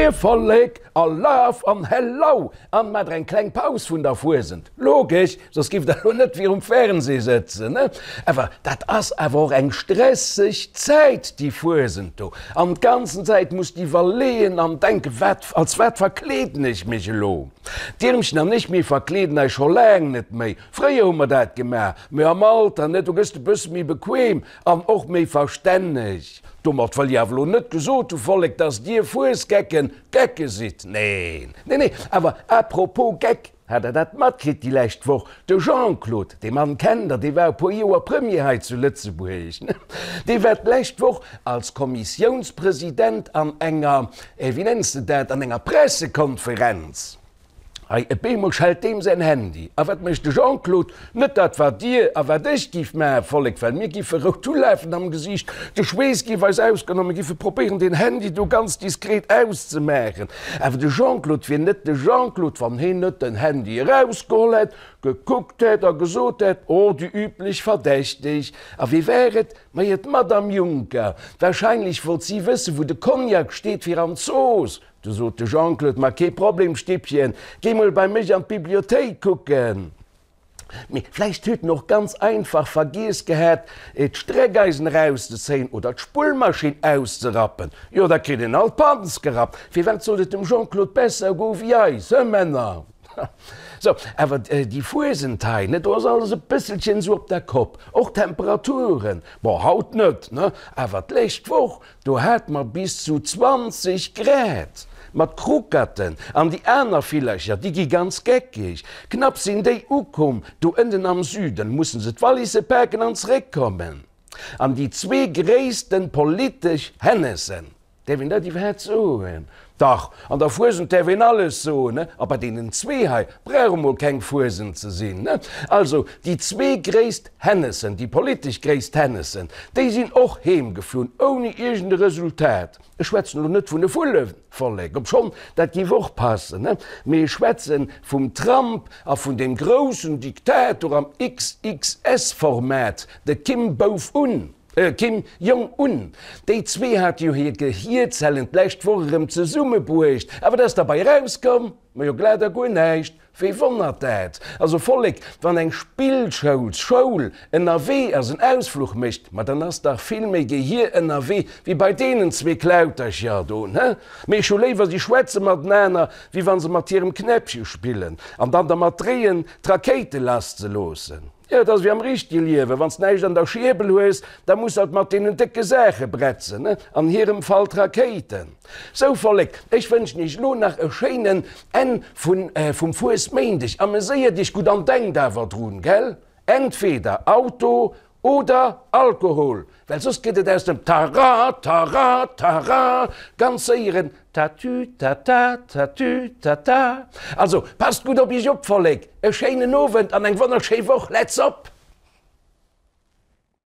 Moie Vollek a Love an Hello! An maacht der eng kleng Paus vun der Fuesent, logesch, soss giff der lo net virum Fernseh sëtzen, ne? Awer dat ass awer och eng stresseg Zäit, déi Fuesent do. An d'ganzen Zäit muss de iwwerleeën an denken, wat, als wat verkleeden ech mech elo? D'Irmchen an ech, mir verkleeden eis scho laang net méi. Fréier hu mer dat gemaach, mee am Alter, ne, do gëss de bësse méi bequem an och méi verstänneg. Domat wëll ech awer elo net gesot hu, Vollek, dass dir Fuesgecken Gecke sidd. Neen, nee, nee. Awer à propos Geck, hat der dat matkritt déi lescht Woch? De Jean-Claude, dee Mann kennt der, dee war e puer Joer Premier hei zu Lëtzebuerg, ne? Dee war d'lescht Woch als Kommissiounspresident an enger, wéi nenns de dat, an enger Pressekonferenz. Hei, e beemol schellt deem säin Handy. A wat mécht de Jean-Claude? Net dat, wat Dir a wat ech giff maachen, Vollek, well mir giffe rout ulafen am Gesiicht, de Schweess giff eis ausgoen a mir giffe probéieren, deen Handy do ganz diskret auszemaachen. Awer de Jean-Claude wier net de Jean-Claude, wann heen net den Handy erausgeholl hätt, gekuckt hätt a gesot hätt, Oh, déi üblech Verdächteg. A wie war et? Majo, d'Madame Juncker. Wahrscheinlech wollt si wëssen, wou de Cognac steet fir an d'Zooss. Du sot de Jean-Claude, Ma kee Problem, Stippchen, géi mol bei mech an d'Bibliothéik kucken. Mee vläicht huet en och ganz einfach vergiess gehat, d'Streckeisen erauszezéien oder d'Spullmaschinn auszerappen. Jo, da kritt een alt d'Panz gerappt. Firwat sollt et dem Jean-Claude besser goe wéi eis, hë Männer? Sou, awer déi Fuesent hei, ne, do ass alles e bësselchen esou op der Kopp, och d'Temperaturen. Bon, haut net, ne, awer d'lescht Woch, Do hate mer bis zu 20 Grad! Ma d'Kruckerten an déi aner Villercher, déi gi ganz geckeg. Knapp sinn déi ukomm, do ënnen am Süden, mussen se d'Wallisse paken an zeréckkommen. An déi zwee gréissten politesch Hennessen, däerf een dat iwwerhaapt soen? Dach, an der Fuesent däerf een alles soen, ne? A bei deenen zwee hei brauch emol keng Fuesent ze sinn, ne? Also, déi zwee gréisst Hennessen, déi politesch gréisst Hennessen, déi sinn och heemgeflunn, ouni iergend e Resultat. Ech schwätzen elo net vun de Vullevollek, obschonn dat géif och passen, ne? Mee ech schwätze vum Trump a vun deem groussen Diktator am XXS-Format, de Kim Bouf-Un. Kim Jong Un, déi zwee hate jo hir Gehierzellen d'lescht Woch erëm zesummebruecht, a wat ass derbei erauskomm? Majo glat a guer näischt. Wee wonnert dat? Also Vollek, wann eng Spillschoulsschoul ënnerwee ass, en Ausfluch mécht, ma dann ass dach vill méi Gehier ënnerwee wéi bei deenen zwee Klautercher do, ne? Mee ech hu léiwer si schwätze matenaner, wéi wa se mat hirem Knäppche spillen an dann dermat dreeën, d'Rakéite lasszeloossen. Jo, et ass wéi am richtege Liewen, wann s näischt an der Schierbel hues, da muss alt mat deenen décke Saache bretzen, ne? An hirem Fall d'Rakéiten. Sou, Vollek, ech wënschen iech elo nach e schéinen Enn vun, vum Fuesméindeg. Ameséiert iech gutt an denkt awer drun, gell? Entweder Auto oder Alkohol, well soss gëtt et aus dem Tara, tara, tara ganz séier en Tatü, tata, tatü, tata. Also, passt gutt op iech op, Vollek! E schéinen Owend an eng wonnerschéi Woch! Let's op!